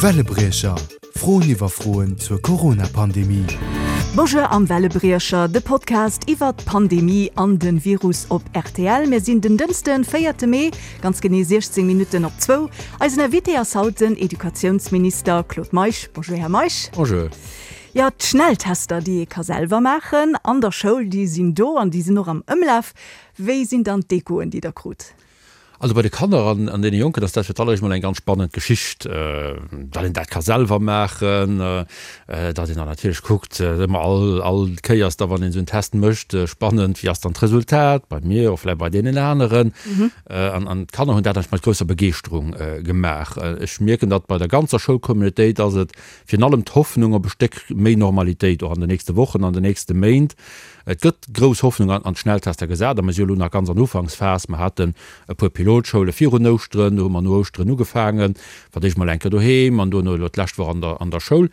Wellebriecher, Froen iwwer Froen zur Corona-Pandemie. Bonjour am Wellebriecher, de Podcast iwwer d'Pandemie an den Virus op rtl. Mir sinn den Dënschden, véierte Mee, ganz genee 16 Minutten op zwou. Eisen Invité ass haut den Educatiounsminister Claude Meisch. Bonjour Här Meisch. Bonjour. Jo, d'Schnelltester, déi ee ka selwer maachen an der Schoul, déi sinn do an déi sinn och am Ëmlaf. Wéi sinn dann d'Echoen, déi Der krut? Also bei de Kanner an an deene Jonken ass dat fir d'alleréischt mol eng ganz spannend Geschicht, datt een dat ka selwer maachen, datt een dann natierlech kuckt, ëmmer all all Kéiers da wann een esou en Test mécht, spannend, wéi ass dann d'Resultat bei mir, och vläicht bei deenen aneren. An an d'Kanner hunn dat eigentlech mat grousser Begeeschterung gemaach. Ech mierken, datt bei der ganzer Schoulcommunautéit ass et virun allem d'Hoffnung op e Stéck méi Normalitéit och an den nächste Wochen, an den nächste Méint. Et gëtt grouss Hoffnung an d'Schnelltester gesat a mir si jo elo nach ganz an Ufanksphas. Mer haten e puer Pilotschoule virun Ouschteren, do hu mer no Ouschteren ugefaangen, fir d'éischt mol eng Kéier doheem an duerno elo d'lescht Woch an der an der Schoul.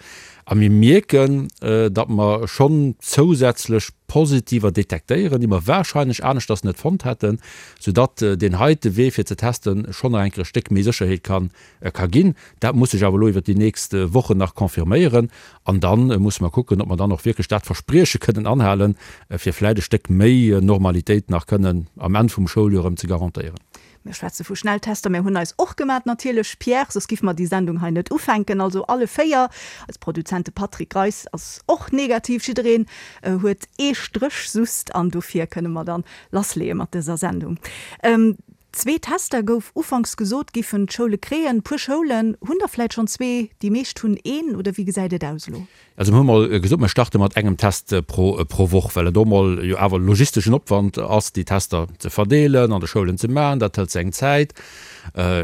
A mir mierken, datt mer schonn zousätzlech Positiver detektéieren, déi mer warscheinlech aneschters net fonnt hätten, soudatt deen heite Wee fir ze testen schonn nach eng Kéier e Stéck méi Sécherheet kann ka ginn. Dat muss sech awer elo iwwert déi nächst Wochen nach confirméieren. An da musse mer kucken, ob mer dann och wierklech dat Versprieche kënnen anhalen, fir vläicht e Stéck méi Normalitéit nach kënnen am Enn vum Schouljoer erëm ze garantéieren. Mir schwätze vu Schnelltester. Mir hunn eis och gemat natierlech, Pierre, soss giffe mer déi Sendung hei net ufänken. Also alle 4. Eis Produzent, de Patrick Greis, ass och negativ. Jiddereen huet ee Stréch sust an dofir kënne mer dann lassleeë mat dëser Sendung. Zwee Tester, gouf ufanks gesot, giffen d'Schoule kréien. Puer Schoulen hunn der vläit schonn zwee, déi meescht hunn een, oder wéi gesäit et aus elo? Also mir hu mol gesot, mir starte mat engem Test pro pro Woch, well et och mol jo awer logisteschen Opwand ass, déi Tester ze verdeelen, an de Schoulen ze maachen. Dat hëlt seng Zäit,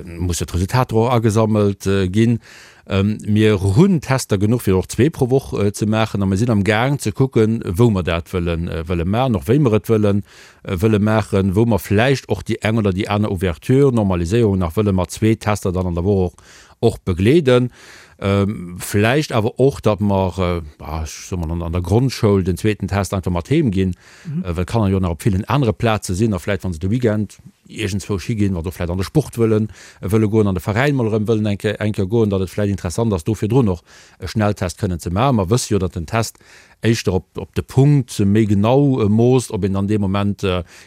musse d'Resultater och agesammelt ginn. Mir hunn Tester genuch, fir och zwee pro Woch ze maachen a mir sinn am Gaang ze kucken, wou mer dat wëlle wëlle maachen, och wéi mer et wëllen wëlle maachen, wou mer vläicht och déi eng oder déi aner Ouverture, Normaliséierung nach wëlle mat zwee Tester dann an der Woch och och begleeden. Vläicht awer och, datt mer, ech soe mol, an der Grondschoul den zweeten Test einfach mat heem ginn, well d'Kanner jo nach op villen anere Plaze sinn a vläicht, wa se de Weekend iergendzwousch higinn, wa se och vläicht an de Sport wëllen wëlle goen, an de Veräin mol erëm wëllen eng Kéier eng Kéier goen, datt et vläicht interessant ass, do virdrun och e Schnelltest kënnen ze maachen. Mer wësse jo, datt den Test éischter op op de Punkt méi genau moosst, ob een dann dee Moment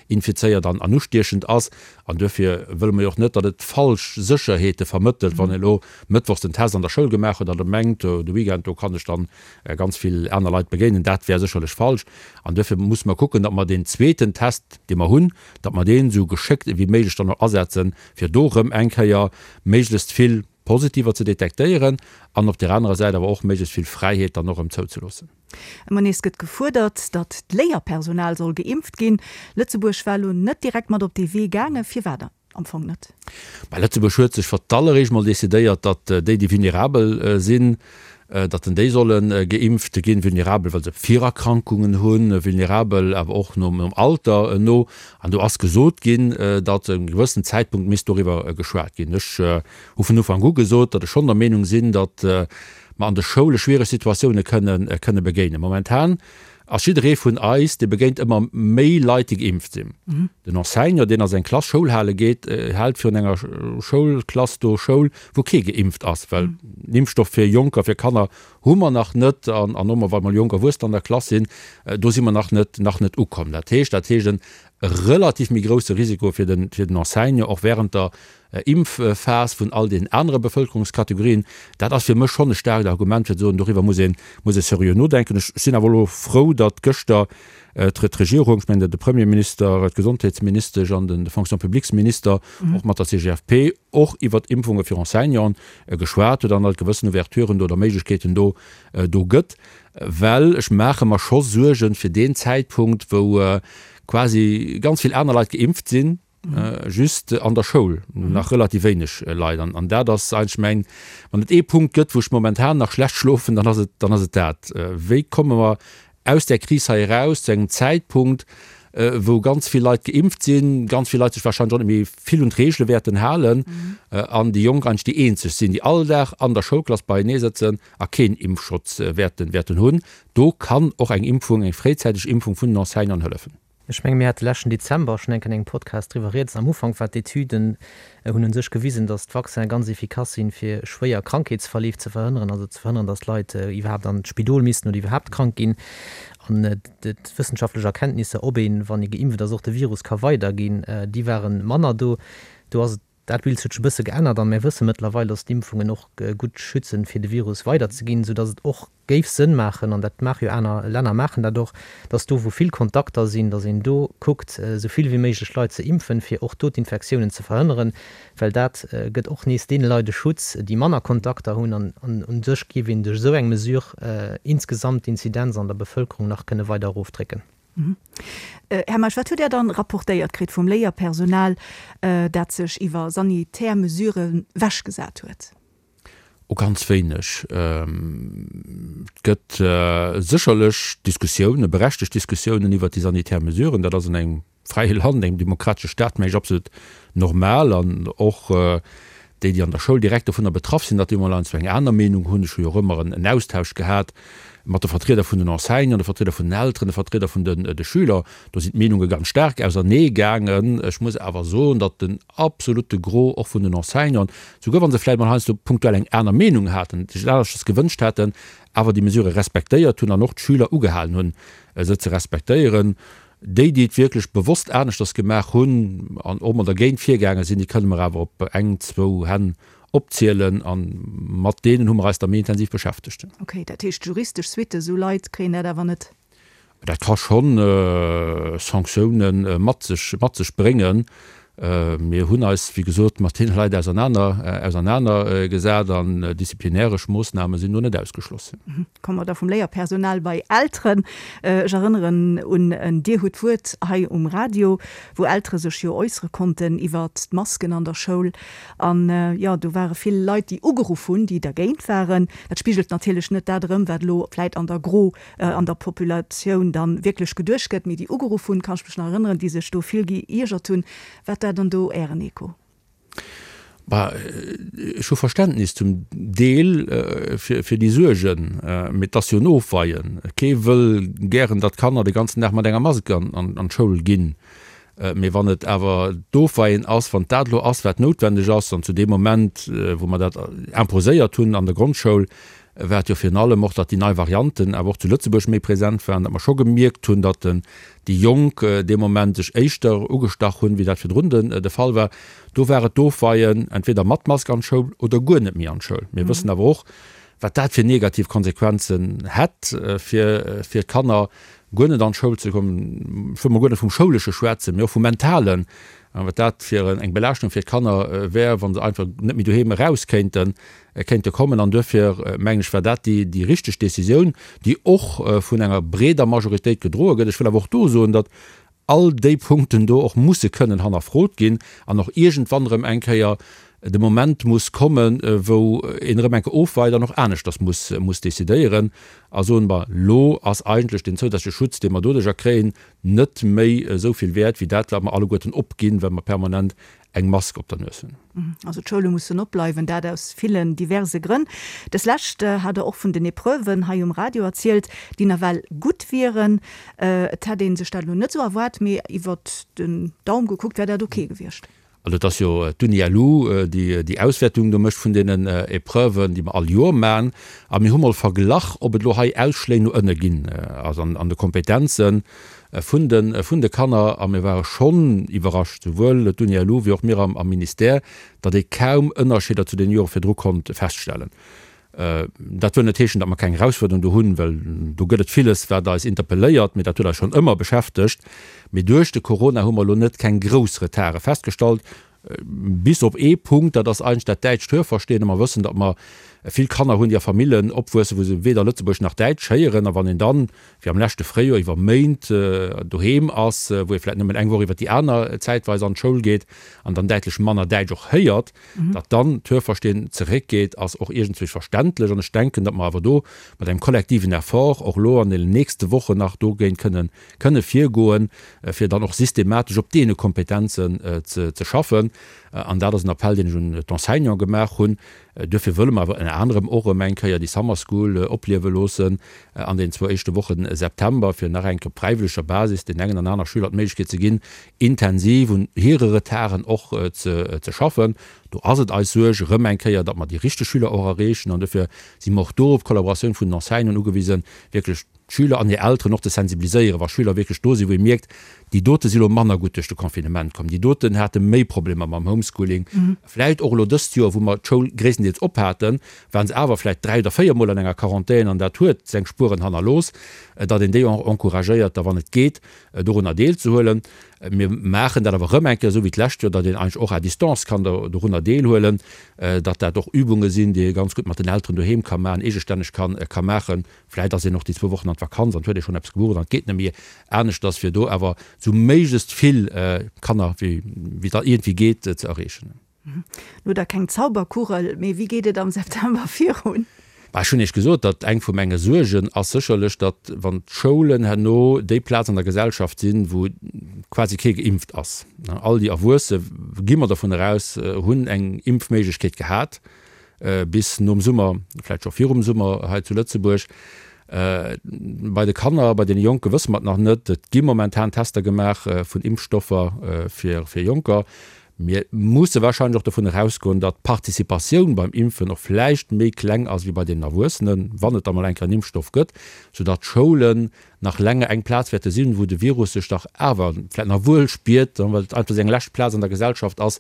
infizéiert an an ustiechend ass. An duerfir wëlle mer jo och net, datt et falsch Sécherheete vermëttelt, wann ee lo mëttwochs den Test an der Schoul gemaach huet an da mengt, de Weekend do kann ech dann ganz vill aner Leit begéinen. Dat wär sécherlech falsch. An duerfir musse mer kucken, datt mer deen zweeten Test, dee mer hunn, datt mer deen esou geschéckt ewéi méiglech dann och asetzen, fir do erëm eng Kéier méiglechst vill Positiver ze detektéieren an op där anerer Säit awer och méiglechst vill Fräiheet dann och erëm zouzeloossen. Ëmmer nees gëtt gefuerdert, datt d'Léierpersonal soll geimpft ginn. Lëtzebuerg war elo net direkt mat op dee Wee gaangen. Firwat am Fong net? Bah, Lëtzebuerg huet sech fir d'alleréischt mol decidéiert, datt déi, déi vulnerabel sinn, datt en déi solle geimpft ginn, vulnerabel, well se Virerkrankungen hunn, vulnerabel awer och nom Alter no. An do ass gesot ginn, datt e gewëssen Zäitpunkt misst doriwwer geschwat ginn. Ech hu vun Ufank u gesot, datt ech schonn der Meenung sinn, datt mer an de Schoule schwiereg Situatioune kënne begéinen. Momentan ass jidderee vun eis, dee begéint ëmmer méi Leit, déi geimpft sinn. Den Enseignant, deen a seng Klass Schoul hale geet, hält virun enger Schoulklass do Schoul, wou kee geimpft ass, well den Impfstoff fir Jonker, fir Kanner hu mer nach net. An an och wa mol jonk Erwuessener an der Klass sinn, do si mer nach net, nach net ukomm. Dat heescht, dat heescht en relativ méi grousse Risiko fir den, fir den Enseignant, och während der Impfphas vun all den anere Bevëlkerungskategorien, dat ass fir mech schonn e staarkt Argument fir ze soen, doriwwer muss een, muss ee seriö nodenken. Ech sinn awer elo frou, datt gëschter d'Regierung, ech mengen de Premierminister, d'Gesondheetsministesch an de Fonction publiques-Minister och mat der CGFP och iwwert Impfunge fir Enseignanten geschwat huet an datt et gewëssen Ouverturen do oder Méiglechkeeten do do gëtt. Well ech maache mer scho Suergen fir deen Zäitpunkt, wou quasi ganz vill aner Leit geimpft sinn, Just an der Schoul nach relativ wéineg Leit. An dat ass eigentlech mäin, wann et ee Punkt gëtt, wou ech momentan nach schlecht schlofen, dann ass et, dann ass et dat. Wéi komme mer aus där Kris hei eraus zu engem Zäitpunkt, wou ganz vill Leit geimpft sinn, ganz vill Leit sech wahrscheinlech och net méi vill un d'Reegele wäerten halen an déi Jonk eigentlech déi eenzeg sinn, déi all Dag an der Schoulklass beienee sëtzen a keen Impfschutz wäerten, wäerten hunn. Do kann och eng Impfung, eng fréizäiteg Impfung vun den Enseignanten hëllefen. Ech menge mir hate leschten Dezember schonn eng Kéier an engem Podcast driwwer rieds. Am Ufank war d'Etüden hunn u sech gewisen, datt d'Vaccine ganz efficace sinn, fir schwéier Krankheetsverleef ze verhënneren, also ze verhënneren, datt Leit iwwerhaapt an d'Spidol missten oder iwwerhaapt krank ginn. An d'wëssenschaftlech Erkenntnisser, ob een, wann ee geimpft ass, och de Virus ka weiderginn, déi ware manner do. Do ass et Dat Bild huet sech e bësse geännert a mir wësse mëttlerweil, dass d'Impfungen och gutt schützen, fir de Virus weiderzeginn, soudass et och géif Sënn maachen, an dat maache jo aner Länner maachen dat och, dass do, wou vill Kontakter sinn, dass een do kuckt, esou vill wéi méiglech Leit ze impfen, fir och do d'Infektiounen ze verhënneren, well dat gëtt och nees deene Leit e Schutz, déi manner Kontakter hunn. An u sech géif een duerch esou eng Mesure insgesamt d'Inzidenz an der Bevëlkerung nach kënne weider erofdrécken. Här Meisch, wat hutt Där dann rapportéiert kritt vum Léierpersonal, dat sech iwwer sanitär Mesuren wechgesat huet? Oh, ganz wéineg. Et gëtt sécherlech Diskussiounen, berechtegt Diskussiounen iwwert déi sanitär Mesuren. Dat ass an engem fräie Land, engem demokratesche Staat, mengen ech, absolut normal. An och déi, déi an der Schoul direkt dovunner betraff sinn, datt déi emol heiansdo eng aner Meenung hunn. Ech hu jo och ëmmer en Austausch gehat mat de Vertrieder vun den Enseignanten, de Vertrieder vun den Elteren, de Vertrieder vun de Schüler. Do sinn d'Meenunge ganz staark ausernee gaangen. Ech muss awer soen, datt den absolute Gros och vun den Enseignanten, souguer wa se vläicht mol heiansdo punktuell eng aner Meenung haten, sech et aneschters gewënscht hätten, awer déi Mesurë respektéiert hunn an och d'Schüler ugehalen hunn, se ze respektéieren. Déi, déi et wierklech bewosst aneschters gemaach hunn an och mol dergéint virgaange sinn, déi kënne mer awer op eng, zwou Hänn opzielen a mat deenen hu mer eis da méi intensiv beschäftegt. Okay, dat heescht juristesch Suitte, esou Leit kréien dat awer net? Dat ka scho Sanktioune mat sech, mat sech bréngen. Mir hunn eis, wéi gesot, mat deene Leit ausernaner, ausernaner gesat an disziplinäresch Moossname sinn do net ausgeschloss. Komme mer da vum Léierpersonal bei Elteren. Ech erënneren un en Dir hutt d'Wuert hei um Radio, wou Eltere sech jo äussere konnten iwwert d'Masken an der Schoul. An, jo, do ware vill Leit, déi ugeruff hunn, déi dergéint waren. Dat spigelt natierlech net dat erëm, wat elo vläit an der Gro an der Populatioun dann wierklech geduecht gëtt, mee déi ugeruff hunn, kann ech mech nach erënneren, déi sech do vill geiergert hunn. Wat war dann do Ären Echo? Bah, ech hu Verständnis zum Deel fir déi Suergen, mee et ass jo en Ofweien. Kee wëll gären, datt d'Kanner de ganzen Dag mat enger Mask an d'Schoul ginn. Mee wann et awer d'Ofweien ass, wann dat elo ass, wat noutwendeg ass, an zu deem Moment, wou mer dat imposéiert hunn an der Grondschoul, war et jo virun allem och, datt déi nei Varianten awer och zu Lëtzebuerg méi present waren, datt mer scho gemierkt hunn, datt déi Jonk dee Moment sech éischter ugestach hunn, wéi dat virdrun de Fall war. Do war et d'Ofweien, entweder mat Mask an d'Schoul oder guer net méi an d'Schoul. Mir wëssen awer och, wat dat fir negativ Konsequenzen hätt fir d'Kanner, guer net an d'Schoul ze kommen. Ech wëll mol guer net vum Schoulesche schwätzen, mee och vum Mentalen, wat dat fir eng Belaaschtung fir d'Kanner wär, wa se einfach net méi doheem eraus kéinten. Kéinte kommen. An duerfir, mengen ech, war dat déi richteg Décisioun, déi och vun enger breeder Majoritéit gedroe gëtt. Ech wëll awer och do soen, datt all déi Punkten do och musse kënnen hannerfrot ginn an och iergendwann erëm eng Kéier de Moment muss kommen, wou een erëm eng Kéier ofweit an och aneschters muss muss décidéieren a soen, Bon, elo ass eigentlech deen zousätzleche Schutz, dee mer doduerjer kréien, net méi esou vill wäert wéi dat, wat mer alleguerten opginn, well mer permanent eng Mask op der Nues hunn. Also d'Schoule mussen opbleiwen, dat aus villen diverse Grënn. Des Lescht hat Der och vun den Epreuven hei um Radio erzielt, déi nawell gutt wieren. Et hätt ee sech dat elo net esou erwaart, mee iwwert den Daum gekuckt wär dat ok gewiescht. Also et ass jo d'Uni-LU, déi déi Auswäertung do mécht vun deenen Epreuven, déi mer all Joer maachen. A mir hu mol verglach, ob et elo hei Ausschléi no ënne ginn, also an de Kompetenzen. Vun de vun de Kanner, a mir ware schonn iwwerrascht, souwuel d'Uni-LU wéi och mir am am Ministère, datt ee kaum Ënnerscheeder zu den Jore virdru konnt feststellen. Dat wëll net heeschen, datt mer keng Erausfuerderung do hunn, well do gëtt et villes, wat eis interpelléiert, mee dat huet eis schonn ëmmer beschäftegt. Mee duerch de Corona hu mer elo net keng grouss Retarde festgestallt. Bis op ee Punkt, dat ass eigentlech dat däitscht Hörverstehen. A mer wëssen, datt mer vill Kanner hunn, déi a Famillen opwuessen, wou se weder Lëtzebuergesch nach Däitsch héieren. A wann een dann, wéi am leschte Fréijoer, iwwer Méint doheem ass, wou ee vläicht nëmmen eng Woch iwwer déi aner zäitweis an d'Schoul geet an dann däitlech manner Däitsch och héiert, datt dann d'Hörverstehen zeréckgeet, ass och iergendzwousch verständlech. An ech denken, datt mer awer do mat engem kollektiven Effort och elo an deenen nächste Wochen nach dogéint kënnen kënne virgoen, fir dann och systematesch op deene Kompetenzen ze schaffen. An dat ass en Appell, deen ech un d'Enseignante gemaach hunn. Duerfir wëlle mer awer ënner anerem och erëm eng Kéier déi Summer School opliewe loossen an den zwou éischte Woche September, fir nach eng Kéier op fräiwëlleger Basis den engen an aner Schüler d'Méiglechkeet ze ginn, intensiv un hire Retarden och ze schaffen. Do ass et eis Suerg erëm eng Kéier, datt mer déi richteg Schüler och erreechen an dofir si mer och do op d'Kollaboratioun vun den Enseignanten ugewisen, wierklech d'Schüler an hir Elteren och ze sensibiliséieren, wa Schüler wierklech do sinn, wou ee mierkt, déi dote si lo manner gutt duerch de Confinement komm, déi doten hate méi Problemer mam Homeschooling, vläicht och elo dëst Joer, wou mer d'Schoul gréisstendeels op haten, waren se awer vläicht 3 oder 4 Mol an enger Quarantän an dat huet seng Spueren hannerlooss, datt een déi och encouragéiert, da wann et geet, dorunner deelzehuelen. Mir maachen dat awer erëm eng Kéier esou wéi d'lescht Joer, datt een eigentlech och à distance kann dorunner deelhuelen, datt dat och Übunge sinn, déi ee ganz gutt mat den Elteren doheem ka maachen, eegestänneg ka maachen. Vläicht ass een och déi zwou Wochen an d'Vakanz an et huet ee schonn eppes gebucht an et geet net méi aneschters, fir do awer esou méiglechst vill Kanner wéi et iergendwéi geet ze erreechen. Lo da keng Zauberkugel, mee wéi geet et am September virun? Bah, ech hunn Iech gesot, datt eng vu menge Suergen ass sécherlech, datt wann d'Schoulen herno déi Plaz an der Gesellschaft sinn, wou quasi kee geimpft ass, all déi Erwuesse, gi mer dovun eraus, hunn eng Impfméiglechkeet gehat bis nom Summer, vläicht scho virum Summer hei zu Lëtzebuerg. Bei de Kanner, bei deene Jonke wësse mer et nach net. Et gi momentan Tester gemaach vun Impfstoffer fir Jonker. Mir musse wahrscheinlech och dovun erausgoen, datt d'Participatioun beim Impfen och vläicht méi kleng ass wéi bei den Erwuessenen, wann et da mol eng Kéier en Impfstoff gëtt, soudatt d'Schoulen nach länger eng Plaz wäerte sinn, wou de Virus sech dach awer vläicht nach wuel spiert, well et einfach seng lescht Plaz an der Gesellschaft ass,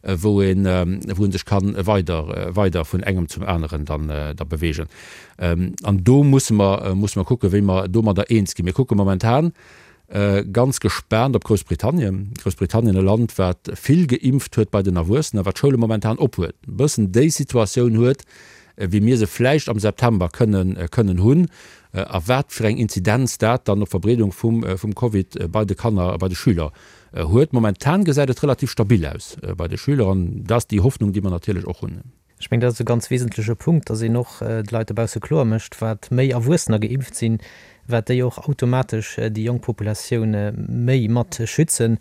wou een, wou en sech ka weider, weider vun engem zum aneren dann da bewegen. An do musse mer, musse mer kucken, wéi mer domadder eens ginn. Mir kucke momentan Ganz gespaant op Groussbritannien. Groussbritannien, e Land, wat vill geimpft huet bei den Erwuessenen, wat d'Schoule momentan op huet, e bëssen déi Situatioun huet, wéi mir se vläicht am September kënnen kënnen hunn, a wat fir eng Inzidenz dat dann op d'Verbreedung vum vum Covid bei de Kanner a bei de Schüler huet. Momentan gesäit et relativ stabil aus bei de Schüler an dat ass déi Hoffnung, déi mer natierlech och hunn. Ech mengen, dat ass e ganz wesentleche Punkt, dass een och de Leit dobausse kloer mécht, wat méi Erwuessener geimpft sinn, wat déi och automatesch déi jonk Populatioun méi mat schützen.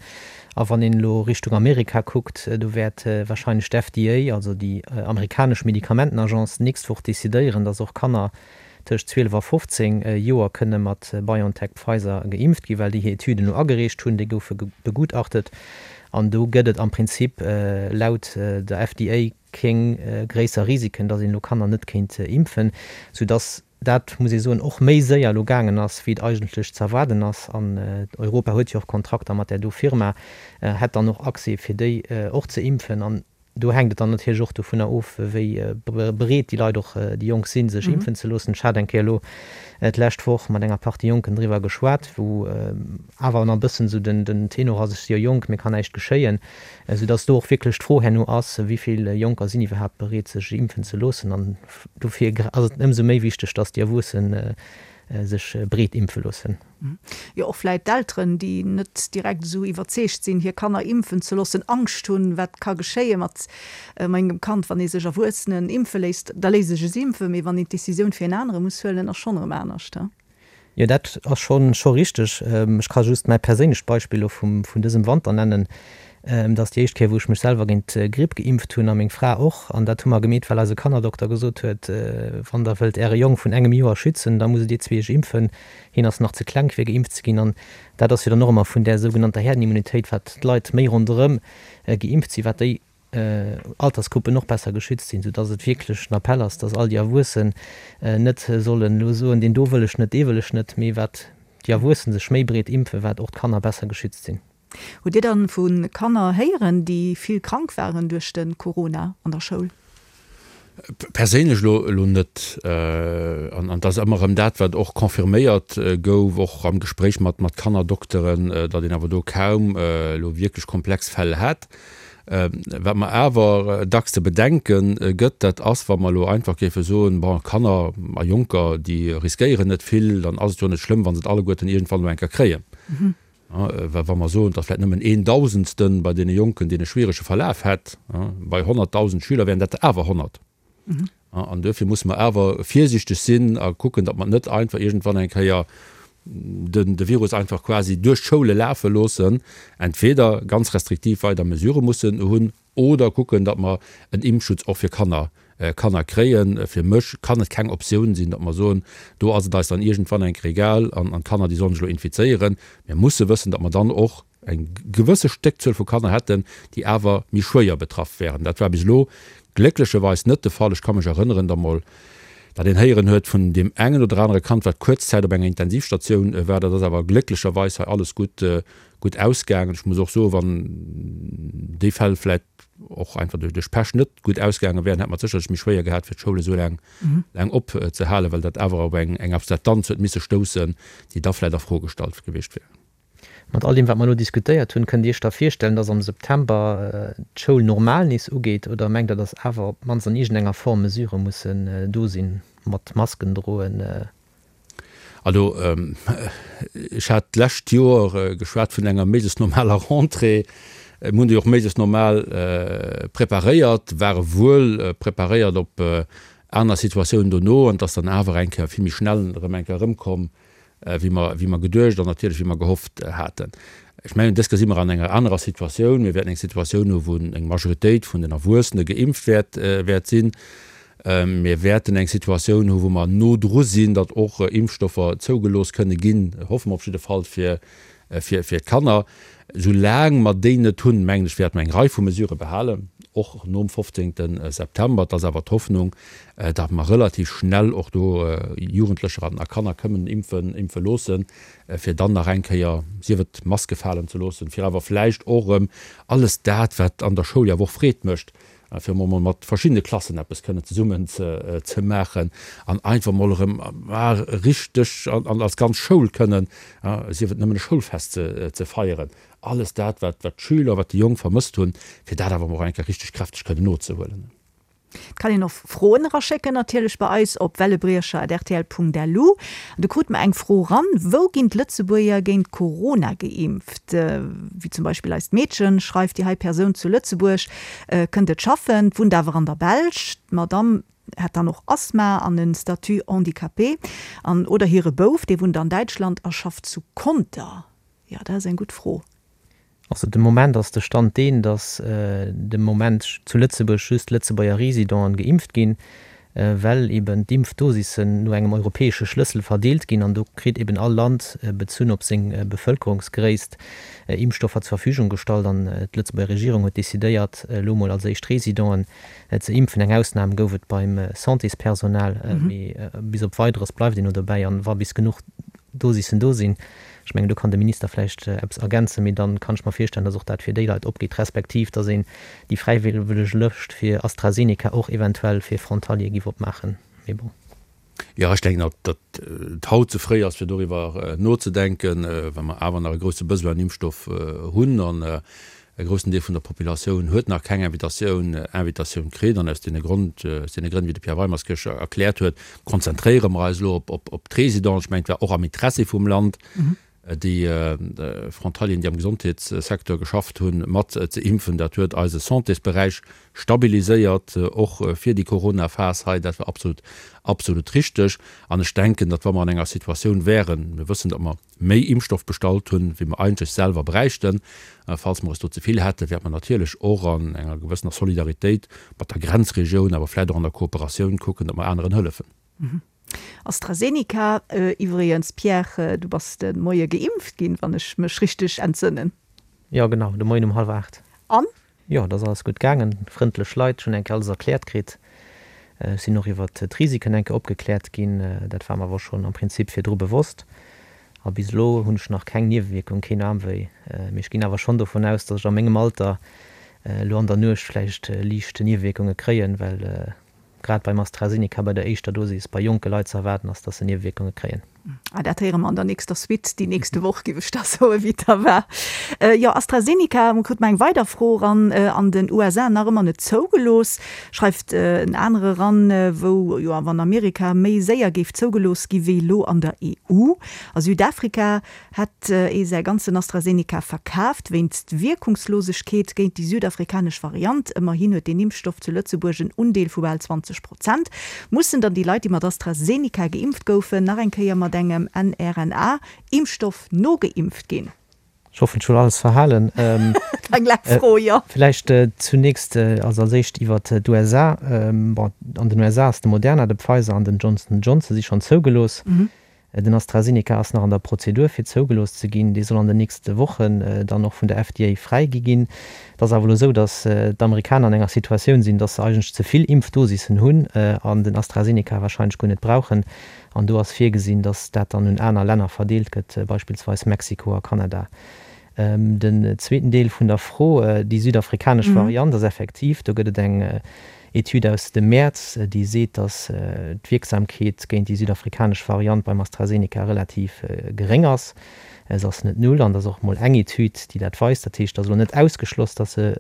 A wann een elo Richtung Amerika kuckt, do wäert wahrscheinlech d'FDA, also déi amerikanesch Medikamentenagence, d'nächst Woch decidéieren, dass och Kanner tëscht 12 a 15 Joer kënne mat BioNTech-Pfizer geimpft ginn, well déi hir Etüden elo agereecht hunn. Déi goufe begutachtet an do gëtt et am Prinzip laut der FDA kéng gréisser Risiken, datt een elo Kanner net kéint impfen, soudatt dat, muss ee soen, och méi séier elo gaangen ass, wéi et eigentlech ze erwaarden ass. An Europa huet jo och Kontrakter mat där do Firma, hätt dann och Accès fir déi och ze impfen. An do hänkt et dann natierlech och dovunner of, wéi bereet déi Leit och, déi Jonk sinn, sech impfen ze loossen. Ech hat eng Kéier elo d'lescht Woch mat enger Partie Jonken driwwer geschwat, wou awer nach e bëssen esou den Tenor ass, ech si jo jonk, mir kann näischt geschéien. Esou dass do och wierklech d'Fro herno ass, wéi vill Jonker sinn iwwerhaapt bereet, sech impfen ze loossen. An dofir ass et ëmsou méi wichteg, dass déi Erwuesse sech breet impfe loossen. Jo, och vläit d'Elteren, déi net direkt esou iwwerzeegt sinn, hir Kanner impfen ze loossen, Angscht hunn, wat ka geschéie mat mengem Kand, wann ee sech Erwuessenen impfe léisst. Da léisst ech es impfen, mee wann een d'Decisioun fir en anere muss huelen, ass schonn erëm anescht. Jo, dat ass scho scho richteg. Ech ka just mäi perséinlecht Beispill elo vum vun dësem Wanter nennen. Dat ass déi éischt Kéier, wou ech mech selwer géint d'Gripp geimpft hunn a meng Fra och. An dat hu mer gemeet, well eise Kannerdokter gesot huet, Wann Der wëllt Äre Jong vun engem Joer schützen, da musst Dir zwee iech impfen. Hien ass nach ze kleng fir geimpft ze ginn. An dat ass jo dann och ëmmer vun där sougenannter Herdenimmunitéit, wat d'Leit méi ronderëm geimpft sinn, wat déi Altersgruppen och besser geschützt sinn, soudass et wierklech en Appell ass, dass all déi Erwuessen net sollen elo soen, deen do wëll ech net, dee wëll ech net, mee wat déi Erwuessen sech méi breet impfen, wat och d'Kanner besser geschützt sinn. Hutt Dir dann vu Kanner héieren, déi vill krank waren duerch de Corona an der Schoul? Perséinlech elo elo net. An et ass ëmmer erëm dat, wat och confirméiert gouf, och am Gespréich mat mat Kannerdokteren, datt een awer do kaum elo wierklech komplex Fäll hätt. Wat mer awer dacks ze bedenke gëtt, dat ass, wa mer elo einfach géife soen, bon, Kanner a Jonker, déi riskéieren net vill, dann ass et jo net schlëmm, wa se et alleguerten iergendwann elo eng Kéier kréien. Well wa mer soen, datt vläicht nëmmen een Dausendste bei deene Jonken deen e schwierege Verlaf hätt, bei 100.000 Schüler wären dat der awer 100. An duerfir musse mer awer virsiichteg sinn a kucken, datt mer net einfach iergendwann eng Kéier de Virus einfach quasi duerch d'Schoule lafe loossen, entweder ganz restriktiv weider Mesurë mussen hunn oder kucken, datt mer en Impfschutz och fir Kanner. Kanner kréien. Fir mech kann et keng Optioun sinn, datt mer soen, do ass et eis dann iergendwann eng Kéier egal an d'Kanner, déi sollen sech elo infizéieren. Mir musse wëssen, datt mer dann och eng gewësse Stéckzuel vu Kanner hätten, déi awer méi schwéier betraff wären. Dat war bis elo glécklecherweis net de Fall. Ech ka mech erënneren, datt mol, datt een héieren huet vun deem engen oder anere Kand, wat kuerz Zäit op enger Intensivstatioun war. Dat ass awer glécklecherweis hei alles gutt, gutt ausgaangen. Ech muss och soen, wann déi Fäll vläicht och einfach duerch Pech net gutt ausgaange wären, hätt mer et sécherlech méi schwéier gehat, fir d'Schoul esou laang, laang opzehalen, well dat awer op eng, eng Akzeptanz huet misse stoussen, déi da vläicht a Fro gestallt gewiescht wär. Mat all deem, wat mer elo diskutéiert hunn, kënnt Dir Iech da virstellen, dass am September d'Schoul normal nees ugeet oder mengt Der, dass awer op d'mannst an iergendenger Form Mesurë mussen do sinn, mat Masken droen? Also, ech hat d'lescht Joer geschwat vun enger méiglechst normaler Rentrée. Mir hunn déi och méiglechst normal preparéiert, ware wuel preparéiert op aner Situatiounen dono an et ass dann awer eng Kéier vill méi schnell erëm eng Kéier erëmkomm, wéi mer, wéi mer geduecht an natierlech wéi mer gehofft haten. Ech mengen, dës Kéier si mer an enger anerer Situatioun. Mir wäerten eng Situatioun hu wou eng Majoritéit vun den Erwuessene geimpft wäert, wäert sinn. Mir wäerten eng Situatioun hu wou mer no dru sinn, datt och Impfstoffer zougelooss kënne ginn, hoffe mer op jidde Fall fir, fir, fir d'Kanner. Soulaang mer déi net hunn, mengen ech, wäerte mer eng Rei vu Mesurë behalen, och nom 15. September. Et ass awer d'Hoffnung, datt mer relativ schnell och do Jugendlecher a Kanner kënnen impfen, impfe loossen, fir dann nach eng Kéier, sief et d'Maske falen ze loossen, fir awer vläicht och erëm alles dat, wat an der Schoul jo awer och Freed mécht, fir emol mol mat verschiddene Klassen eppes kënnen zesummen ze maachen an einfach mol erëm richteg an als ganz Schoul kënnen, sief et nëmmen e Schoulfest ze feieren, alles dat, wat d'Schüler, wat déi Jonk vermësst hunn, fir dat awer emol och eng Kéier richteg kräfteg kënnen nozehuelen. Et kann een och Froen eraschécken natierlech bei eis op wellebriecher@rtl.lu. An do krute mer eng Fro ran, Wou ginn d'Lëtzebuerger géint Corona geimpft? Wéi zum Beispill eist Meedchen, schreift déi hei Persoun zu Lëtzebuerg, kënnt et schaffen, wunnt awer an der Belsch. D'Madamm hätt dann och Asthma an e Statut handicapé. An oder hire Bouf, dee wunnt an Däitschland a schafft zu Conter. Jo, dat ass eng gutt Fro. Also de Moment ass de Stand deen, datt de Moment zu Lëtzebuerg just Lëtzebuerger Residenten geimpft ginn, well eben d'Impfdosissen no engem europäesche Schlëssel verdeelt ginn an do kritt eben all Land, bezunn op seng Bevëlkerungsgréisst, Impfstoffer zur Verfügung gestallt an d'Lëtzebuerger Regierung huet decidéiert, elo mol als éischt Residenten ze impfen. Eng Ausnam gouf et beim Santéspersonal, mee bis op Weideres bleift een elo dobäi an wa bis genuch Dosissen do sinn, Ech mengen, do kann de Minister vläicht eppes ergänzen, mee dann kann ech mer virstellen, dass och dat fir déi Leit opgeet, respektiv dass een déi fräiwëlleg Lëscht fir AstraZeneca och eventuell fir Frontalier giff opmaachen. Mee bon. Jo, ech denken, datt et haut ze fréi ass, fir doriwwer nozedenken, well mer awer nach e grousse Besoin un Impfstoff hunn an E groussen Deel vun der Populatioun huet nach keng Invitatioun Invitatioun kritt an aus deene Grond, aus deene Grënn, wéi de Pierre Weimerskirch erkläert huet, konzentréiere mer eis elo op, op, op d'Résidenten. Ech mengen, et war och am Interessi vum Land, déi Frontalieren, déi am Gesondheetssecteur geschafft hunn, mat ze impfen. Dat huet eise Santésberäich stabiliséiert, och fir déi Corona-Phas hei. Dat war absolut, absolut richteg. An ech denken, datt wa mer an enger Situatioun wären, mir wëssen, datt mer, méi Impfstoff bestallt hunn, wéi mer eigentlech selwer bräichten. Falls mer es do ze vill hätten, wäerte mer natierlech och an enger gewëssener Solidaritéit mat der Grenzregioun, awer vläicht och an der Kooperatioun kucken, datt mer aneren hëllefen. AstraZeneca iwwregens, Pierre, du bass de Moie geimpft ginn, wann ech mech richteg entsënnen. Jo, genau, de Moien um hallwer 8. An? Jo, et ass alles gutt gaangen, frëndlech Leit, ech hunn eng Kéier alles erkläert kritt. Ech sinn och iwwert d'Risiken eng Kéier opgekläert ginn, dat war mer awer schonn am Prinzip virdru bewosst. A bis elo hunn ech nach keng Niewewierkung, keen Aarmwéi. Mee ech ginn awer schonn dovun aus, datt ech a mengem Alter elo an der Nuecht vläicht liicht Niewewierkunge kréien, well Grad beim AstraZeneca bei der éischter Dosis bei jonke Leit ze erwaarden ass, dass se Niewewierkunge kréien. Ah, dat héiere mer an der nächster Suite déi nächste Woch, géif ech da soen, wéi et da war. Jo, AstraZeneca, mer krute mer eng weider Fro eran, an den USA nach ëmmer net zougelooss, schreift en anere eran, wou jo awer an Amerika méi séier géif zougelooss gi wéi elo an der EU. A Südafrika hätt ee säi ganzen AstraZeneca verkaaft, wéinst Wierkungslosegkeet géint déi südafrikanesch Variant. Ëmmerhin huet deen Impfstoff zu Lëtzebuerg en Undeel vu bal 20 Prozent. Mussen dann déi Leit, déi mat AstraZeneca geimpft goufen, nach eng Kéier mat engem mRNA-Impfstoff nogeimpft ginn? Ech hoffen, ech hunn alles verhalen. Eng laang Fro, jo. Vläicht zunächst, also als éischt iwwert d'USA. Bon, an den USA ass de Moderna, de Pfizer an den Johnson Johnson si schonn zougelooss. Den AstraZeneca ass nach an der Prozedur fir zougelooss ze ginn. Dee soll an den nächste Wochen dann och vun der FDA fräigi ginn. Et ass awer elo esou, datt d'Amerikaner an enger Situatioun sinn, datt se eigentlech ze vill Impfdosissen hunn an den AstraZeneca warscheinlech guer net brauchen. An do ass virgesinn, datt dat dann un aner Länner verdeelt gëtt, beispillsweis Mexiko a Kanada. Den zweeten Deel vun der Fro, déi südafrikanesch Variant ass effektiv, do gëtt et eng Etüd aus dem Mäerz, déi seet, datt d'Wierksamkeet géint déi südafrikanesch Variant beim AstraZeneca relativ geréng ass. Se ass net null an et ass och mol eng Etüd, déi dat weist. Dat heescht, et ass elo net ausgeschloss, datt se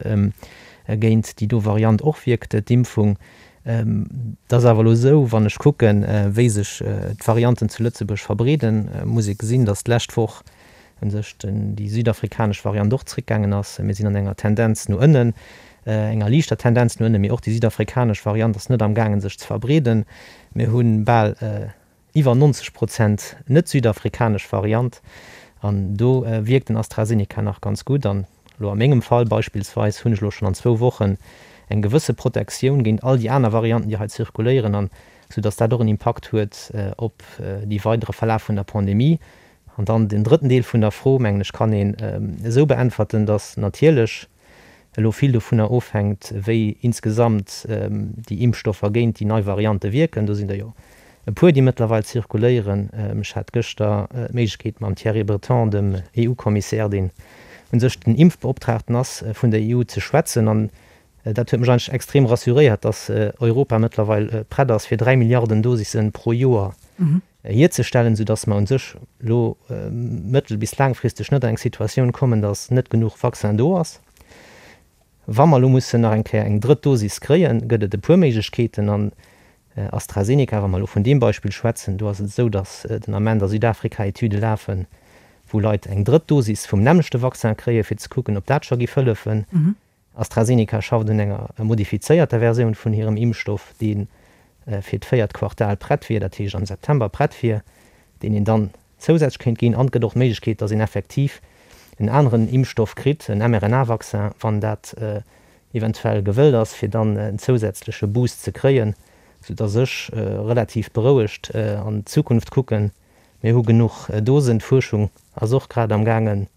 géint déi do Variant och wierkt, d'Impfung. Et ass awer elo esou, wann ech kucken, wéi sech d'Varianten zu Lëtzebuerg verbreeden, muss ee gesinn, datt d'lescht Woch u sech déi südafrikanesch Variant och zréckgaangen ass. Mir sinn an enger Tendenz no ënnen, enger liichter Tendenz no ënnen, mee och déi südafrikanesch Variant ass net amgaangen, sech ze verbreeden. Mir hu bal Iwwer 90 Prozent net südafrikanesch Variant an do wierkt den AstraZeneca nach ganz gutt. An elo a mengem Fall beispillsweis hunn ech elo schonn an zwou Wochen eng gewësse Protektioun géint all déi aner Varianten, déi hei zirkuléieren an sou datt dat och en Impakt huet op déi weidere Verlaf vun der Pandemie. An dann den drëtten Deel vun der Fro, mengen ech, kann een esou beäntwerten, datt natierlech elo vill dovunner ofhänkt, wéi insgesamt déi Impfstoffer géint déi nei Variante wierken. Do sinn der jo e puer, déi mëttlerweil zirkuléieren. Ech hat gëschter d'Méiglechkeet mam Thierry Breton, dem EU-Kommissär, deen u sech den Impfbeoptraagten ass vun der EU, ze schwätzen. An dat huet mech eigentlech extrem rassuréiert, datt Europa mëttlerweil prett ass, fir 3 Milliarden Dosisse pro Joer hierzestellen, soudass mer u sech elo mëttel bis laangfristeg net an eng Situatioun kommen, dass net genuch Vaccin do ass. Wa mer elo mussen nach eng Kéier eng drëtt Dosis kréien, gëtt et e puer Méiglechkeeten. An AstraZeneca, wa mer elo vun deem Beispill schwätzen, do ass et esou, dass den Ament a Südafrika Etüde lafen, wou Leit eng drëtt Dosis vum nämmlechte Vaccin kréien, fir ze kucken, ob dat scho géif hëllefen. AstraZeneca schafft un enger modifizéierter Versioun vun hirem Impfstoff, dee fir d'véiert Quartal prett wier, dat heescht am September prett wier, deen een dann zousätzlech kéint ginn. An et gëtt och d'Méiglechkeet, datt een effektiv en aneren Impfstoff kritt, en mRNA-Vaccin, wann dat eventuell gewëllt ass, fir dann en zousätzleche Boost ze kréien, soudatt ech relativ berouegt an d'Zukunft kucken. Mir hu genuch Dosen, d'Fuerschung ass och grad am gaangen,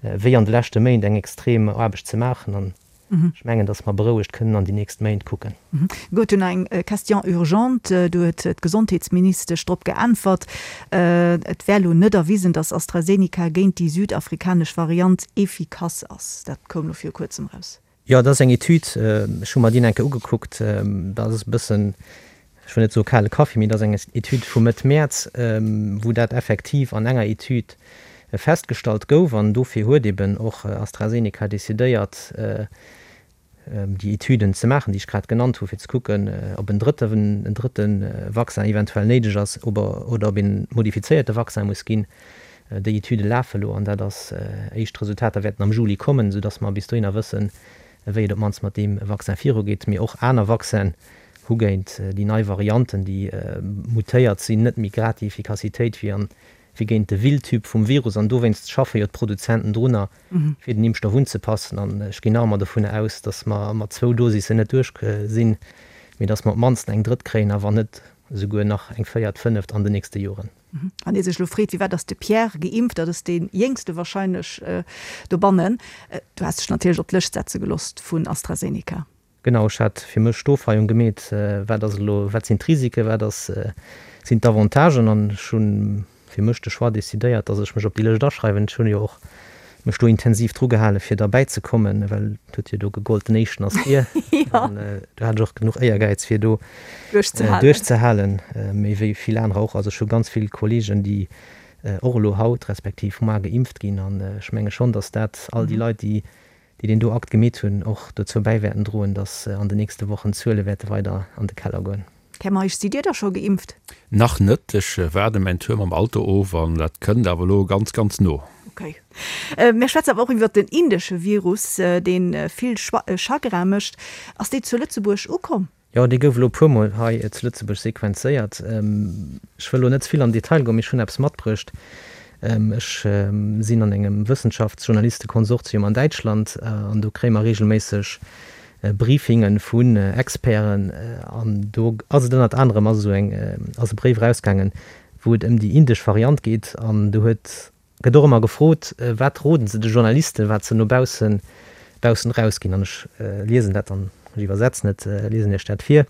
wéi an de leschte Méint eng extrem Aarbecht ze maachen an ech mengen, datt mer berouegt kënnen an déi nächst Méint kucken. Gutt, dunn eng Question urgente, do huet d'Gesondheetsministesch drop geäntwert, et wär elo net erwisen, datt AstraZeneca géint déi südafrikanesch Variant efficace ass. Dat koum elo viru kuerzem raus. Jo, dat ass eng Etüd, ech hu mer déi eng Kéier ugekuckt. Dat ass e bëssen, ech wëll net soe kale Kaffi, mee dat ass eng Etüd vu Mëtt Mäerz, wou dat effektiv an enger Etüd festgestallt gouf. An dofir huet eben och AstraZeneca decidéiert, déi Etüden ze maachen, déi ech grad genannt hu, fir ze kucken, ob en drëtte, en drëtte Vaccin eventuell néideg ass oder ob een modifizéierte Vaccin muss ginn. Déi Etüde lafe elo an dat ass, éischt Resultater wäerten am Juli kommen, soudass mer bis dohinner wëssen, wéi et op d'mannst mat deem Vaccin virugeet. Mee och aner Vaccinen hu géint déi nei Varianten, déi mutéiert sinn, net méi grad déi Effikassitéit wéi an, wéi géint de Wildtyp vum Virus. An dowéinst schaffe jo d'Produzenten drunner, fir den Impfstoff unzepassen. An ech ginn nach ëmmer dovun aus, dass mer mat zwou Dosissen net duerch sinn, mee dass mer op d'mannst eng drëtt kréien a wann net esouguer nach eng véiert, fënneft an den nächste Joren. Wann ee sech elo freet, firwat ass de Pierre geimpft, dat ass dee Jéngste warscheinlech dobannen. Du has dech natierlech op d'Lëscht setze gelooss vun AstraZeneca. Genau, ech hat fir mech d'Ofweiung gemeet, wat ass elo, wat sinn d'Risiken, wat ass, sinn d'Avantagen an ech hu fir mech de Choix decidéiert, datt ech mech op déi Lëscht aschreiwen. Ech hunn jo och mech do intensiv dru gehalen, fir derbäi ze kommen, well et huet jo do gegollt, den Éischten ass vir. An do hat ech och genuch Éiergäiz, fir do duerchzehalen, méi wéi vill anerer och. Also ech hu ganz vill Kolleegen, déi och elo haut respektiv moar geimpft ginn. An ech menge schonn, datt dat all déi Leit, déi deen do Akt gemeet hunn, och dozou bäi wäerten droen, datt an den nächste Wochen d'Zuele wäerte weider an de Keller goen. Här Meisch, sidd Dir da scho geimpft? Nach net, ech waarde mäin Tour mam Auto of an dat kënnt awer elo ganz, ganz no. Ok. Mir schwätzen awer och iwwert den indesche Virus, dee vill Chagrin mécht. Ass dee zu Lëtzebuerg ukomm? Jo, dee gouf elo e puermol hei zu Lëtzebuerg sequenzéiert. Ech wëll elo net ze vill an den Detail goen, mee ech hunn eppes matbruecht. Ech sinn an engem Wëssenschaftsjournalistekonsortium an Däitschland an do kréie mer reegelméisseg Briefinge vun Experten an do ass et ënnert anerem ass esou eng ass e Bréif erausgaangen, wou et ëm déi indesch Variant geet an do huet gëtt och ëmmer gefrot, wat roden se de Journalisten, wat se no baussen baussen erausginn an ech liesen dat dann, ech iwwersetzen et, liesen Iech dat vir.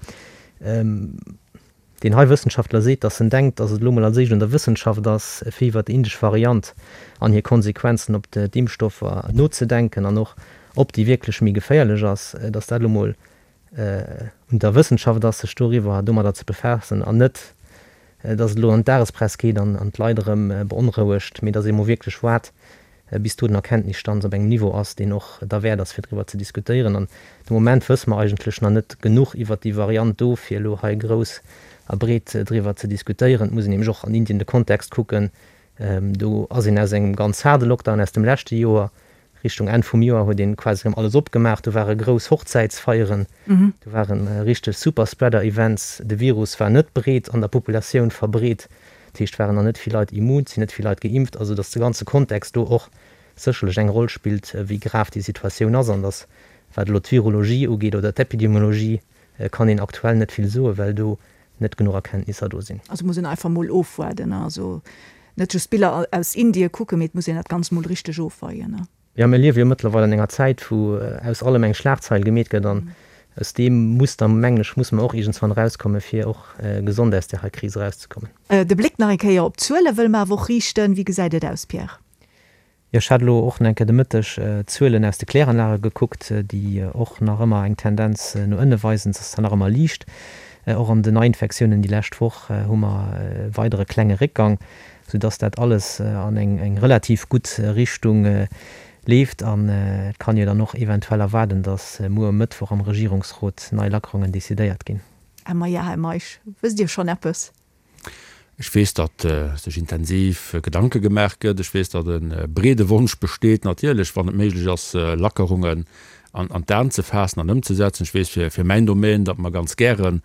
Deen hei Wëssenschaftler seet, datt en denkt, datt et elo mol als éischt un der Wëssenschaft ass, fir iwwer déi indesch Variant an hir Konsequenzen op d'Impfstoffer nozedenken an och, ob déi wierklech méi geféierlech ass, datt dat elo mol un der Wëssenschaft ass, sech doriwwer, domadder ze befaassen an net, datt et elo an d'Dagespress geet an d'Leit erëm beonrouegt, mee datt ee mol wierklech waart, bis do den Erkenntnisstand op engem Niveau ass, deen och derwäert ass, fir driwwer ze diskutéieren. An de Moment wësse mer eigentlech nach net genuch iwwert déi Variant do, fir elo hei grouss a breet driwwer ze diskutéieren. Et muss een nämlech och an Indien de Kontext kucken. Do ass een aus engem ganz haarde Lockdown aus dem leschte Joer, Richtung Enn vum Joer huet een quasi erëm alles opgemaach. Do ware grouss Hochzäitsfeieren, do ware richteg Superspreader-Events. De Virus war net breet an der Populatioun verbreet. Dat heescht, waren nach net vill Leit immun, et sinn net vill Leit geimpft, also datt de ganze Kontext do och sécherlech eng Roll spillt, wéi grav déi Situatioun ass an datt, wat elo d'Virologie ugeet oder d'Epidemiologie, kann een aktuell net vill soen, well do net genuch Erkenntnisser do sinn. Also muss een einfach mol ofwaarden, also net just Biller aus Indien kucken, mee et muss een dat Ganzt mol richteg ofweien. Jo, mir liewe jo mëttlerweil an enger Zäit, wou aus allem eng Schlagzeil gemeet gëtt an aus deem Muster, mengen ech, musse mer och iergendswann erauskommen, fir och gesond aus där hei Kris erauszekommen. De Bléck nach eng Kéier op d'Zuele wëlle mer awer och riichten. Wéi gesäit et aus, Pierre? Jo, ech hat elo och nach eng Kéier de Mëtteg d'Zuelen aus de Kläranlage gekuckt, déi och nach ëmmer eng Tendenz no ënne weisen. Se ass zwar nach ëmmer liicht. Och an den Neiinfektiounen déi lescht Woch hu mer e weidere klenge Réckgang. sou dass dat alles an eng relativ gutt Richtung leeft an et kann jo dann och eventuell erwaarden, dass muer um Mëttwoch am Regierungsrot nei Lackerungen decidéiert ginn. Här Mayer, Här Meisch, wësst Dir schonn eppes? Ech weess, datt sech intensiv Gedanke gemaach gëtt. Ech weess, datt e breede Wonsch besteet, natierlech, wann et méiglech ass, Lackerungen an d'Aen ze faassen an ëmzesetzen. Ech weess fir mäin Domaine, datt mer ganz gären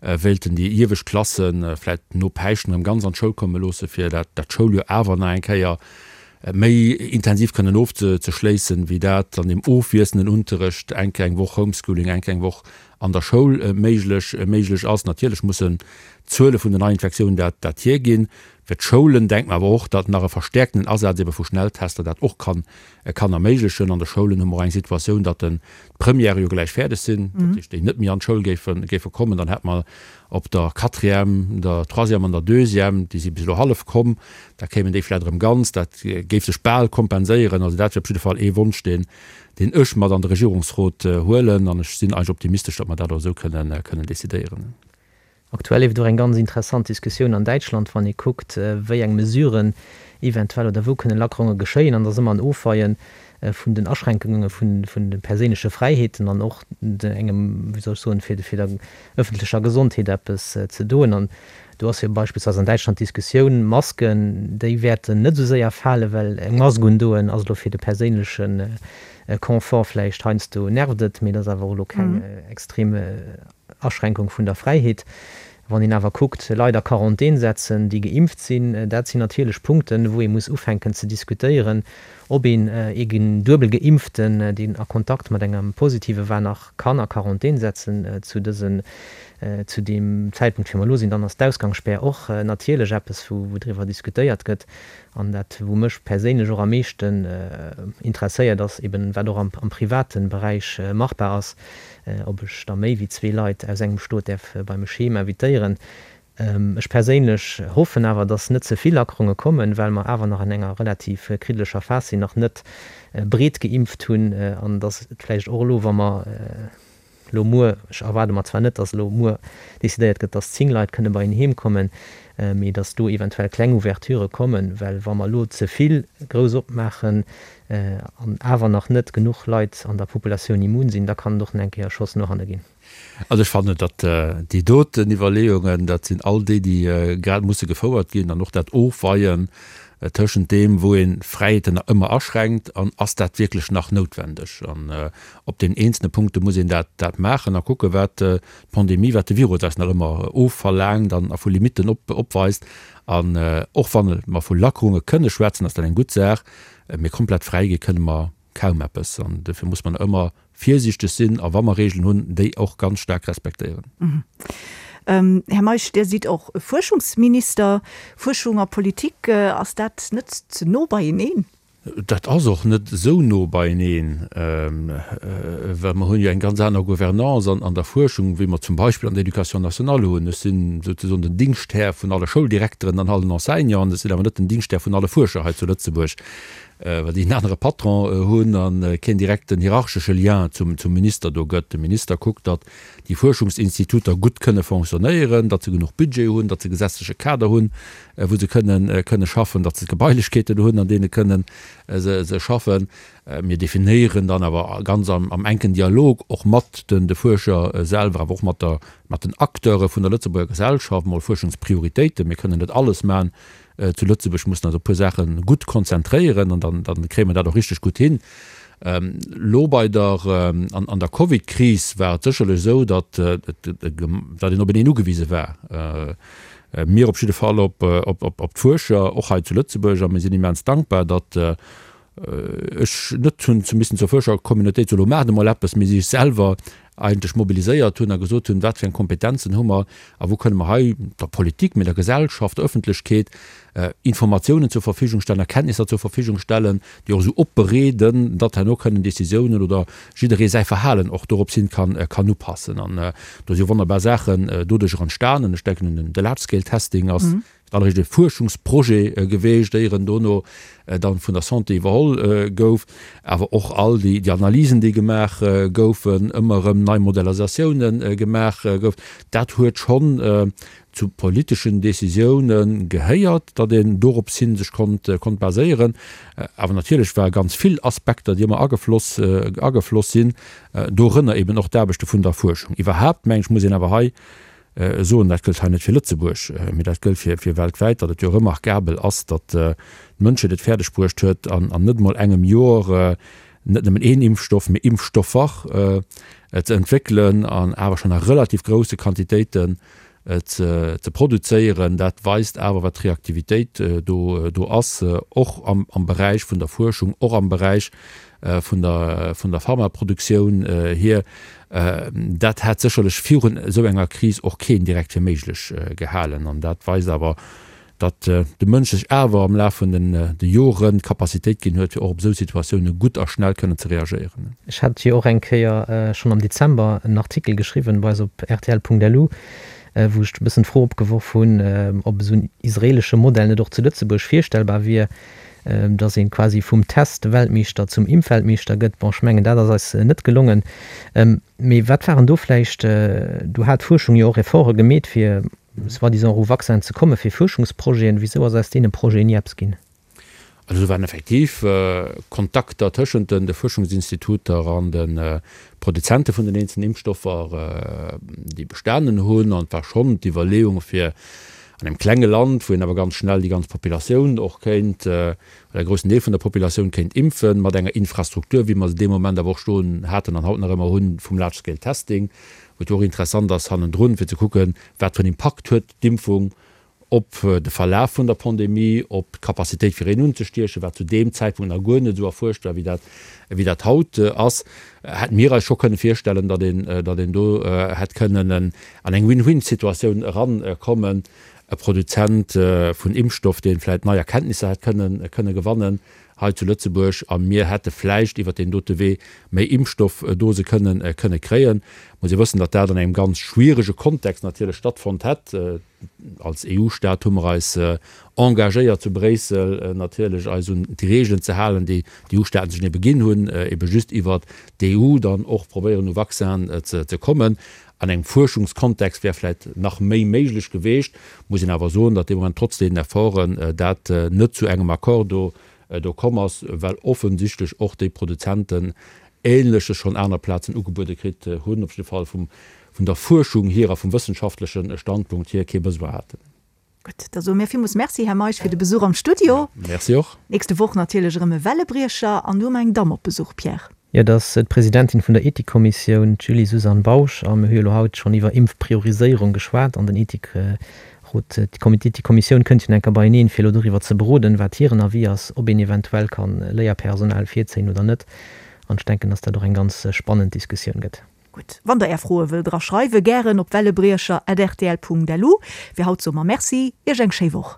wéilten déi iewescht Klasse vläit no Päischten erëm ganz an d'Schoul komme loosse fir dat dat Schouljoer awer nach eng Kéier méi intensiv kënnen ofzeschléissen, wéi dat an deem ofwiesselnden Unterrecht, eng Kéier eng Woch Homeschooling, eng Kéier eng Woch an der Schoul méiglech méiglech ass. Natierlech mussen d'Zuele vun den Neiinfektiounen dat dat hierginn. Fir d'Schoulen denkt mer awer och, datt nach e verstäerkten Asaz ebe vu Schnelltester dat och kann kann erméiglechen. An de Schoulen hu mer och eng Situatioun, datt den d'Premièrë jo gläich fäerdeg sinn, dat heescht, déi net méi an d'Schoul géife géife kommen. Dann hätt mer op der Quatrième, der Troisième an der Deuxième, déi si bis elo hallef komm, da kéimen déi vläicht erëm ganz. Dat géif sech bal kompenséieren. Also dat wier op jidde Fall ee Wonsch, deen deen ech mat an de Regierungsrot huelen. An ech sinn eigentlech optimistesch, datt mer dat och esou kënnen kënnen decidéieren. Aktuell leeft och eng ganz interessant Diskussioun an Däitschland, wann ee kuckt, wéi eng Mesuren eventuell oder wou kënne Lackerunge geschéien. An et ass ëmmer en Ofweie vun den Aschränkunge vun de perséinleche Fräiheeten an och engem, wéi soll ech soen, fir der ëffentlecher Gesondheet eppes ze doen. An do ass jo beispillsweis an Däitschland d'Diskussioun, Masken, déi wäerten net esou séier falen, well eng Mask undoen ass elo fir de perséinleche Confort vläicht heiansdo nervt et, mee et ass awer och elo keng extrem Aschränkung vun der Fräiheet. Wann een awer kuckt, Leit a Quarantän setzen, déi geimpft sinn, dat sinn natierlech Punkten, wou ee muss ufänken ze diskutéieren, ob een ee duebel Geimpften, deen a Kontakt mat engem Positive war, nach kann a Quarantän setzen zu dësen, zu deem Zäitpunkt, wéi mer elo sinn. Dann ass d'Ausgangsspär och natierlech eppes, wou driwwer diskutéiert gëtt. An dat, wou mech perséinlech och am meeschten interesséiert, ass eben, wat och am private Beräich machbar ass, ob ech da méi wéi zwee Leit aus engem Stot däerf bei mech heem invitéieren. Ech perséinlech hoffen awer, dass net ze vill Lackerunge kommen, well mer awer nach an enger relativ kriddelecher Phas sinn, nach net breet geimpft hunn an dass et vläicht och elo, wa mer elo muer, ech erwaarde mer zwar net, dass elo muer decidéiert gëtt, dass 10 Leit kënne bei een heem kommen, mee dass do eventuell kleng Ouverturë kommen, well wa mer elo ze vill grouss opmaachen an awer nach net genuch Leit an der Populatioun immun sinn, da kann et och nach eng Kéier e Schoss no hanne ginn. Also ech fannen, datt déi doten Iwwerleeungen, dat sinn all déi, déi grad musse gefouert ginn, an och dat Ofweien. tëschent deem, wou ee Fräiheeten nach ëmmer aschränkt an ass dat wierklech nach noutwendeg. An op den eenzelne Punkte muss een dat dat maachen a kucke wat d'Pandemie, wat de Virus eis nach ëmmer ofverlaangt an a vu Limitten op opweist. An och wa mer vu Lackerunge kënne schwätzen, ass dat eng gutt Saach, mee komplett fräi gi kënne mer kaum eppes. An dofir muss mer nach ëmmer virsiichteg sinn a wa mer Regeln hunn, déi och ganz staark respektéieren. Här Meisch, Dir sidd och Fuerschungsminister. Fuerschung a Politik, ass dat net ze no beieneen? Dat ass och net esou no beieneen, well mer hunn jo eng ganz aner Gouvernance an der Fuerschung, wéi mer zum Beispill an der Éducation nationale hunn. Ech sinn souzesoen den Dingschthär vun alle Schouldirekteren an allen Enseignanten, ech sinn awer net den Dingschthär vun alle Fuerscher hei zu Lëtzebuerg. well déi en anere Patron hunn a keen direkten hierarchesche Lien zum Minister do gëtt. De Minister kuckt, datt déi Fuerschungsinstituter gutt kënne fonctionnéieren, datt se genuch Budget hunn, datt se e gesetzleche Kader hunn, wou se kënne kënne schaffen, datt se d'Gebailechkeeten hunn, an deene kënne se schaffen. Mir definéieren dann awer ganz am enken Dialog och mat de Fuerscher selwer, awer och mat der mat den Acteure vun der Lëtzebuerger Gesellschaft mol Fuerschungsprioritéiten. Mir kënnen net alles maachen, Zu Lëtzebuerg mussen eis op e puer Saache gutt konzentréieren an dann, dann kréie mer dat och richteg gutt hin. Elo bei der, an, an der Covid-Kris war et sécherlech esou, datt, datt een openeen ugewise war. Mir op jidde Fall op, op, op, op d'Fuerscher, och hei zu Lëtzebuerg. A mir sinn immens dankbar, datt ech net hunn ze missen zur Fuerschercommunautéit soen, elo maacht emol eppes, mee si sech selwer eigentlech mobiliséiert hunn a gesot hunn, wat fir eng Kompetenzen hu mer a wou kënne mer hei der Politik, mee der Gesellschaft, der Öffentlechkeet Informatiounen zur Verfügung stellen, Erkenntnisser zur Verfügung stellen, déi och esou opbereeden, datt herno kënnen Décisiounen oder jidderee säi Verhalen och dorops hin kann, kann upassen. An do si wonnerbar Saachen doduercher entstanen. Ech denken un de Large-Scale-Testing ass Dann e Fuerschungsprojet geweecht, éier en dono dann vun der Santé iwwerholl gouf. Awer och all déi Analysen, déi gemaach goufen, ëmmer erëm nei Modellisatiounen gemaach gouf, dat huet schonn zu politeschen Décisiounen gehéiert, datt een dorops hin sech konnt konnt baséieren. Awer natierlech ware ganz vill Aspekter, déi ëmmer agefloss agefloss sinn, dorënner eben och d'Aarbechte vun der Fuerschung. Iwwerhaapt, meng ech, muss een awer hei soen, dat gëllt hei net fir Lëtzebuerg, mee dat gëllt fir weltwäit, datt et jo remarkabel ass, datt d'Mënschheet et fäerdeg bruecht huet, an net emol engem Jor net nëmmen een Impfstoff, mee Impfstoffer ze entwéckelen an awer schonn a relativ grousse Quantitéiten ze produzéieren. Dat weist awer, wat d'Reaktivitéit do ass, och am Beräich vun der Fuerschung, och am Beräich vun der, vun der Pharmaproduktioun hier. Dat hätt sécherlech virun esou enger Kris och keen direkt fir méiglech gehalen. An dat weist awer, datt de Mënsch sech awer am Laf vun den de Joren d'Capacitéit ginn huet, fir och op esou Situatioune gutt a schnell kënnen ze reagéieren. Ech hat jo och eng Kéier schonn am Dezember en Artikel geschriwwen bei eis op rtl.lu, wou ech e bëssen d'Fro opgeworf hunn, ob esou en israeelesche Modell net och zu Lëtzebuerg virstellbar wier. dass een quasi vum Test-Weltmeeschter zum Impfweltmeeschter gëtt. Bon, ech mengen, dat ass eis net gelongen. Mee wat waren do vläicht, do hat d'Fuerschung jo och Efforte gemeet, fir soi-disant u Vaccinen ze kommen, fir Fuerschungsprojeten. Wisou ass aus deene Projeten ni eppes ginn? Also do waren effektiv Kontakter tëschent de Fuerschungsinstituter an de Produzente vun den eenzelnen Impfstoffer, déi bestanen hunn. An et war schonn d'Iwwerleeung, fir An engem klenge Land, wou een awer ganz schnell déi ganz Populatioun och kéint, oder e groussen Deel vun der Populatioun kéint impfen, mat enger Infrastruktur, wéi mer se dee Moment awer och stoen haten an haut nach ëmmer hunn, vum Large Scale Testing, wou et jo och interessant ass hannendrun, fir ze kucken, wat fir en Impakt huet d'Impfung op de Verlaf vun der Pandemie, op d'Capacitéit fir een unzestiechen, wat zu deem Zäitpunkt nach guer net esou erfuerscht war, wéi dat, wéi dat haut ass, hätte mir eis scho kënne virstellen, datt een, datt een do hätt kënnen en an eng Win-Win-Situatioun erankommen, e Produzent vun Impfstoff, dee vläicht nei Erkenntnisser hätt kënnen, kënne gewannen hei zu Lëtzebuerg, a mir hätte vläicht iwwert deen dote Wee méi Impfstoffdose kënnen, kënne kréien. Muss ee wëssen, datt dat an engem ganz schwierege Kontext natierlech stattfonnt hätt. Als EU-Staat hu mer eis engagéiert zu Bréissel natierlech eis un déi Reegelen ze halen, déi d'EU-Staaten sech ebe ginn hunn, ebe just iwwert d'EU dann och probéieren u Vaccinen ze kommen. An engem Fuerschungskontext wär vläit nach méi méiglech geweecht, muss een awer soen, datt dee Moment trotz deenen Efforten dat net zu engem Accord do do komm ass, well offensichtlech och déi Produzenten Ähnleches schonn aner Plazen ugebuede kritt hunn, op jidde Fall vum vun der Fuerschung hier a vum wëssenschaftleche Standpunkt hier kee Besoin haten. Gutt, da soe mir villmools Merci, Här Meisch, fir de Besuch am Studio. Merci och. Nächste Woch natierlech erëm e Wellebriecher an du hu mer eng Damm op Besuch, Pierre. Jo, dat ass d'Presidentin vun der Ethikkommissioun, d'Julie Suzanne Bausch. A mir hu jo elo haut schonn iwwer Impfprioriséierung geschwat an den Ethikrot, d'Ethikkommissioun kënnt jo nach eng Kéier beieneen, fir elo doriwwer ze beroden, wat hiren Avis ass, ob een eventuell ka Léierpersonal virzéien oder net. An ech denken, dass dat och eng ganz spannend Diskussioun gëtt. Gutt, wann der Är Froe wëllt era schreiwen, gären op wellebriecher at rtl Punkt lu. Fir haut soe mer Merci, Iech eng schéi Woch.